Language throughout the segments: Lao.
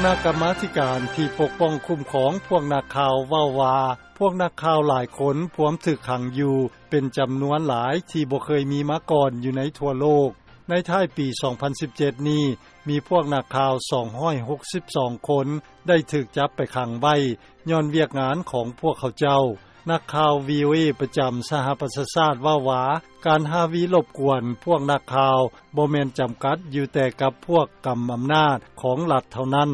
ຄະນະກຳມາທິການທີ່ປົກປ້ອງຄຸ້ມຄອງພວກນັກຂ່າວເວົ້າວ່າ ພວກນັກຂ່າວຫຼາຍຄົນພວມຖືກຂັງຢູ່ເປັນຈຳນວນຫຼາຍທີ່ບໍ່ເຄີຍມີມາກ່ອນຢູ່ໃນທົ່ວໂລກ. ໃນທ້າຍປີສອງພັນສິບເຈັດນີ້ ມີພວກນັກຂ່າວສອງຮ້ອຍຫົກສິບສອງຄົນໄດ້ຖືກຈັບໄປຂັງໄວ້ ຍ້ອນວຽກງານຂອງພວກເຂົາເຈົ້າ. ນັກຂ່າວ VOA ປະຈຳສະຫະປະຊາຊາດເວົ້າວ່າ ການຮາວີລົບກວນພວກນັກຂ່າວບໍ່ແມ່ນຈຳກັດຢູ່ແຕ່ກັບພວກກຳອຳນາດຂອງລັດເທົ່ານັ້ນ.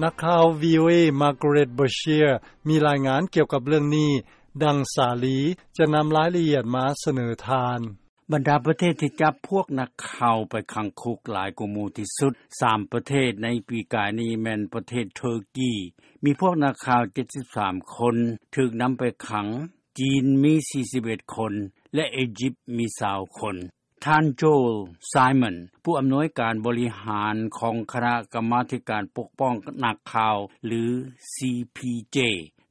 ນັກຂ່າວ VOA Margaret Beshear ມີລາຍງານກ່ຽວກັບເລື່ອງນີ້ ດັ່ງສາລີຈະນຳລາຍລະອຽດມາສະເໜີທ່ານ. ບັນດາປະເທດທີ່ຈັບພວກນັກຂ່າວໄປຂັງຄຸກຫຼາຍກວ່າໝູ່ທີ່ສຸດ ສາມປະເທດໃນປີກາຍນີ້ແມ່ນປະເທດເທີກີ ມີພວກນັກຂ່າວເຈັດສິບສາມຄົນຖືກນຳໄປຂັງ, ຈີນມີສີ່ສິບເອັດຄົນ ແລະ ອີຢິບມີຊາວຄົນ. ທ່ານ Joel Simon ຜູ້ອຳນວຍການບໍລິຫານຂອງຄະນະກຳມາທິການປົກປ້ອງນັກຂ່າວ ຫຼື CPJ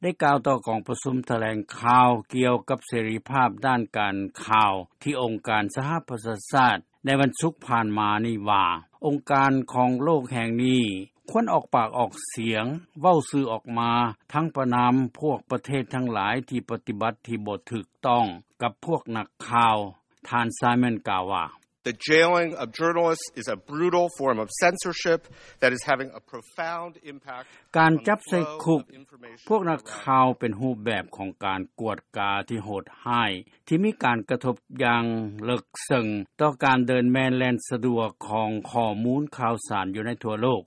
ໄດ້ກ່າວຕໍ່ກອງປະຊຸມຖະແຫຼງຂ່າວກ່ຽວກັບເສລີພາບດ້ານການຂ່າວທີ່ອົງການສະຫະປະຊາຊາດໃນວັນສຸກຜ່ານມານີ້ວ່າ ອົງການຂອງໂລກແຫ່ງນີ້ຄວນອອກປາກອອກສຽງເວົ້າຊື່ອອກມາ ທັງປະນາມພວກປະເທດທັງຫຼາຍທີ່ປະຕິບັດທີ່ບໍ່ຖືກຕ້ອງກັບພວກນັກຂ່າວ. ທ່ານ Simon ກ່າວວ່າ The jailing of journalists is a brutal form of censorship that is having a profound impact ການຈັບໃສ່ຄຸກພວກນັກຂ່າວເປັນຮູບແບບຂອງການກວດກາທີ່ໂຫດຮ້າຍ ທີ່ມີການກະທົບຢ່າງເລິກເຊິ່ງຕໍ່ການເດີນແມ່ນແລ່ນສະດວກຂອງຂໍ້ມູນຂ່າວສານຢູ່ໃນທົ່ວໂລກ.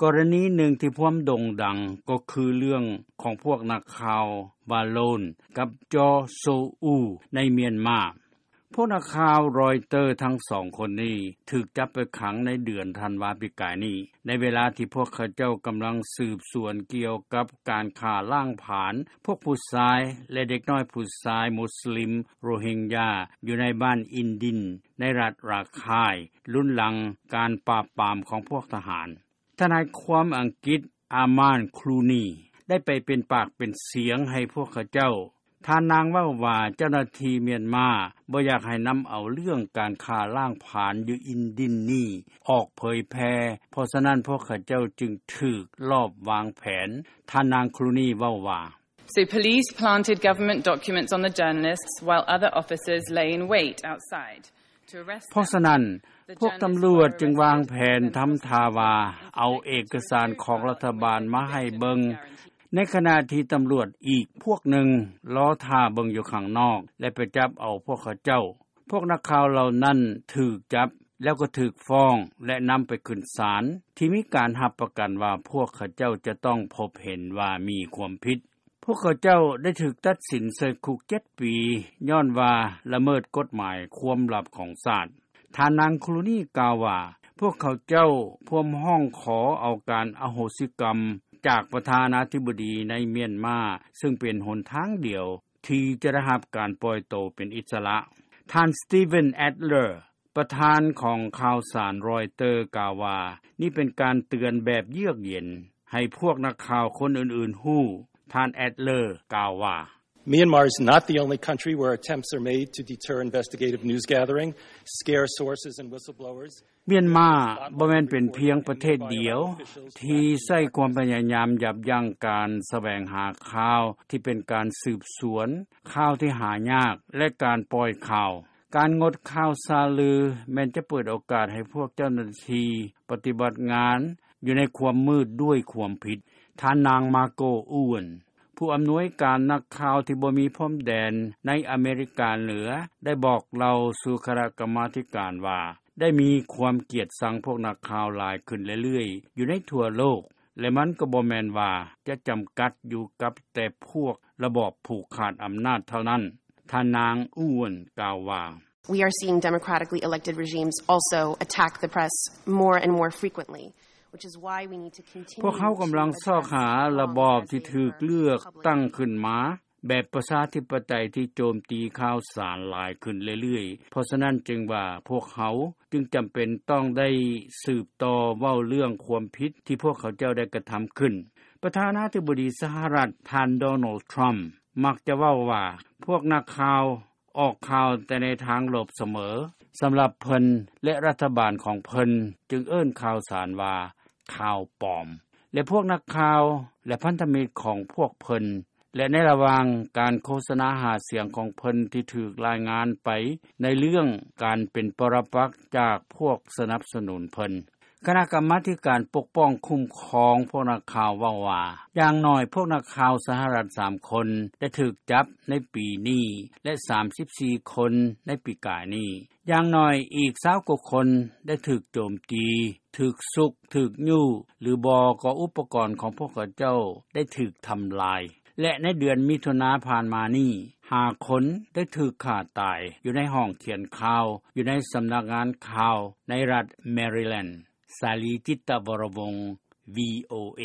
ກໍລະນີໜຶ່ງທີ່ພວມໂດ່ງດັງກໍຄືເລື່ອງຂອງພວກນັກຂ່າວ Balon ກັບ Kyaw Soe Oo ໃນມຽນມາ. ພວກນັກຂ່າວ Reuters ທັງສອງຄົນນີ້ຖືກຈັບໄປຂັງໃນເດືອນທັນວາປີກາຍນີ້ ໃນເວລາທີ່ພວກເຂົາເຈົ້າກຳລັງສືບສວນກ່ຽວກັບການຂ້າລ້າງຜານພວກຜູ້ຊາຍ ແລະ ເດັກນ້ອຍຜູ້ຊາຍມຸສລິມໂຣຮິງຢາ ຢູ່ໃນບ້ານອິນດິນ ໃນລັດຣາຄາຍ ລຸນຫຼັງການປາບປາມຂອງພວກທະຫານ. ທະນາຍຄວາມອັງກິດ Aman Clooney ໄດ້ໄປເປັນປາກເປັນສຽງໃຫ້ພວກເຂົາເຈົ້າ. ທ່ານນາງເວົ້າວ່າ ເຈົ້າໜ້າທີ່ມຽນມາບໍ່ຢາກໃຫ້ນຳເອົາເລື່ອງການຂ້າລ້າງຜານຢູ່ອິນດິນນີ້ອອກເຜີຍແຜ່ ເພາະສະນັ້ນພວກເຂົາເຈົ້າຈຶ່ງຖືກລອບວາງແຜນ. ທ່ານນາງ Clooney ເວົ້າວ່າ So police planted government documents on the journalists while other officers lay in wait outside. ເພາະສະນັ້ນ, ພວກຕຳຫຼວດຈຶ່ງວາງແຜນທຳທ່າວ່າເອົາເອກະສານຂອງລັດຖະບານມາໃຫ້ເບິ່ງ, ໃນຂະນະທີ່ຕຳຫຼວດອີກພວກໜຶ່ງລໍຖ້າເບິ່ງຢູ່ຂ້າງນອກ ແລະ ໄປຈັບເອົາພວກເຂົາເຈົ້າ. ພວກນັກຂ່າວເຫຼົ່ານັ້ນຖືກຈັບ ແລ້ວກໍຖືກຟ້ອງ ແລະ ນຳໄປຂຶ້ນສານ ທີ່ມີການຮັບປະກັນວ່າພວກເຂົາເຈົ້າຈະຕ້ອງພົບເຫັນວ່າມີຄວາມຜິດ. ພວກເຂົາເຈົ້າໄດ້ຖືກຕັດສິນໃສ່ຄຸກເຈັດປີ ຍ້ອນວ່າລະເມີດກົດໝາຍຄວາມລັບຂອງຊາດ. ທ່ານນາງ Clooney ກ່າວວ່າ ພວກເຂົາເຈົ້າພວມຮ້ອງຂໍເອົາການອະໂຫສິກຳຈາກປະທານາທິບໍດີໃນມຽນມາ, ຊຶ່ງເປັນຫົນທາງດຽວທີ່ຈະໄດ້ຮັບການປ່ອຍໂຕເປັນອິດສະຫຼະ. ທ່ານ Steven Adler ປະທານຂອງຂ່າວສານ Reuters ກ່າວວ່າ ນີ້ເປັນການເຕືອນແບບເຍືອກເຢັນໃຫ້ພວກນັກຂ່າວຄົນອື່ນໆຮູ້. ທ່ານ Adler ກ່າວວ່າ Myanmar is not the only country where attempts are made to deter investigative news gathering, scare sources and whistleblowers. ມຽນມາບໍ່ແມ່ນເປັນພຽງປະເທດດຽວທີ່ໃຊ້ຄວາມພະຍາຍາມຢັບຢັ້ງການສະແຫວງຫາຂ່າວທີ່ເປັນການສືບສວນ, ຂ່າວທີ່ຫາຍາກ ແລະ ການປ່ອຍຂ່າວ. ການງົດຂ່າວສາລືແມ່ນຈະເປີດໂອກາດໃຫ້ພວກເຈົ້າໜ້າທີ່ປະຕິບັດງານຢູ່ໃນຄວາມມືດດ້ວຍຄວາມຜິດ. ທ່ານນາງ Margo Ewan ຜູ້ອຳນວຍການນັກຂ່າວທີ່ບໍ່ມີພົມແດນໃນອາເມລິກາເໜືອ ໄດ້ບອກເລົ່າສູ່ຄະນະກຳມາທິການວ່າ ໄດ້ມີຄວາມກຽດຊັງພວກນັກຂ່າວຫຼາຍຂຶ້ນເລື້ອຍໆຢູ່ໃນທົ່ວໂລກ ແລະ ມັນກໍບໍ່ແມ່ນວ່າຈະຈຳກັດຢູ່ກັບແຕ່ພວກລະບອບຜູກຂາດອຳນາດເທົ່ານັ້ນ. ທ່ານນາງ Ewan ກ່າວວ່າ We are seeing democratically elected regimes also attack the press more and more frequently, which is why we need to continue ພວກເຮົາກຳລັງຊອກຫາລະບອບທີ່ຖືກເລືອກຕັ້ງຂຶ້ນມາແບບປະຊາທິປະໄຕທີ່ໂຈມຕີຂ່າວສານຫຼາຍຂຶ້ນເລື້ອຍໆ. ເພາະສະນັ້ນຈຶ່ງວ່າພວກເຮົາຈຶ່ງຈຳເປັນຕ້ອງໄດ້ສືບຕໍ່ເວົ້າເລື່ອງຄວາມຜິດທີ່ພວກເຂົາເຈົ້າໄດ້ກະທຳຂຶ້ນ. ປະທານາທິບໍດີສະຫະລັດ ທ່ານ Donald Trump ມັກຈະເວົ້າວ່າ ພວກນັກຂ່າວ ອອກຂ່າວແຕ່ໃນທາງລົບສະເໝີ. ສຳລັບເພິ່ນ ແລະ ລັດຖະບານຂອງເພິ່ນຈຶ່ງເອີ້ນຂ່າວສານວ່າຂ່າວປອມ. ແລະ ພວກນັກຂ່າວ ແລະ ພັນທະມິດ ຂອງພວກເພິ່ນ ແລະ ໃນລະຫວ່າງ ການໂຄສະນາ ຫາສຽງ ຂອງເພິ່ນ ທີ່ຖືກລາຍງານ ໄປໃນເລື່ອງ ການເປັນປໍຣະປັກ ຈາກພວກ ສະໜັບສະໜູນເພິ່ນ. ຄະນະກຳມາທິການ ປົກປ້ອງຄຸ້ມຄອງ ພວກນັກຂ່າວ ເວົ້າວ່າ ຢ່າງໜ້ອຍ ພວກນັກຂ່າວ ສະຫະລັດ ສາມຄົນ ໄດ້ຖືກຈັບ ໃນປີນີ້ ແລະ 34 ຄົນ ໃນປີກາຍນີ້. ຢ່າງໜ້ອຍອີກ 20 ກວ່າຄົນ ໄດ້ຖືກໂຈມຕີ, ຖືກຊຸກ, ຖືກຍູ້ ຫຼືບໍ່ ກໍອຸປະກອນ ຂອງພວກເຂົາເຈົ້າ ໄດ້ຖືກທຳລາຍ. ແລະ ໃນເດືອນ ມິຖຸນາ ຜ່ານມານີ້ 5 ຄົນ ໄດ້ຖືກຂ້າຕາຍ ຢູ່ໃນຫ້ອງຂຽນຂ່າວ ຢູ່ໃນສຳນັກງານຂ່າວ ໃນລັດ Maryland. ສາລີ ຈິດຕະວໍລະວົງ VOA.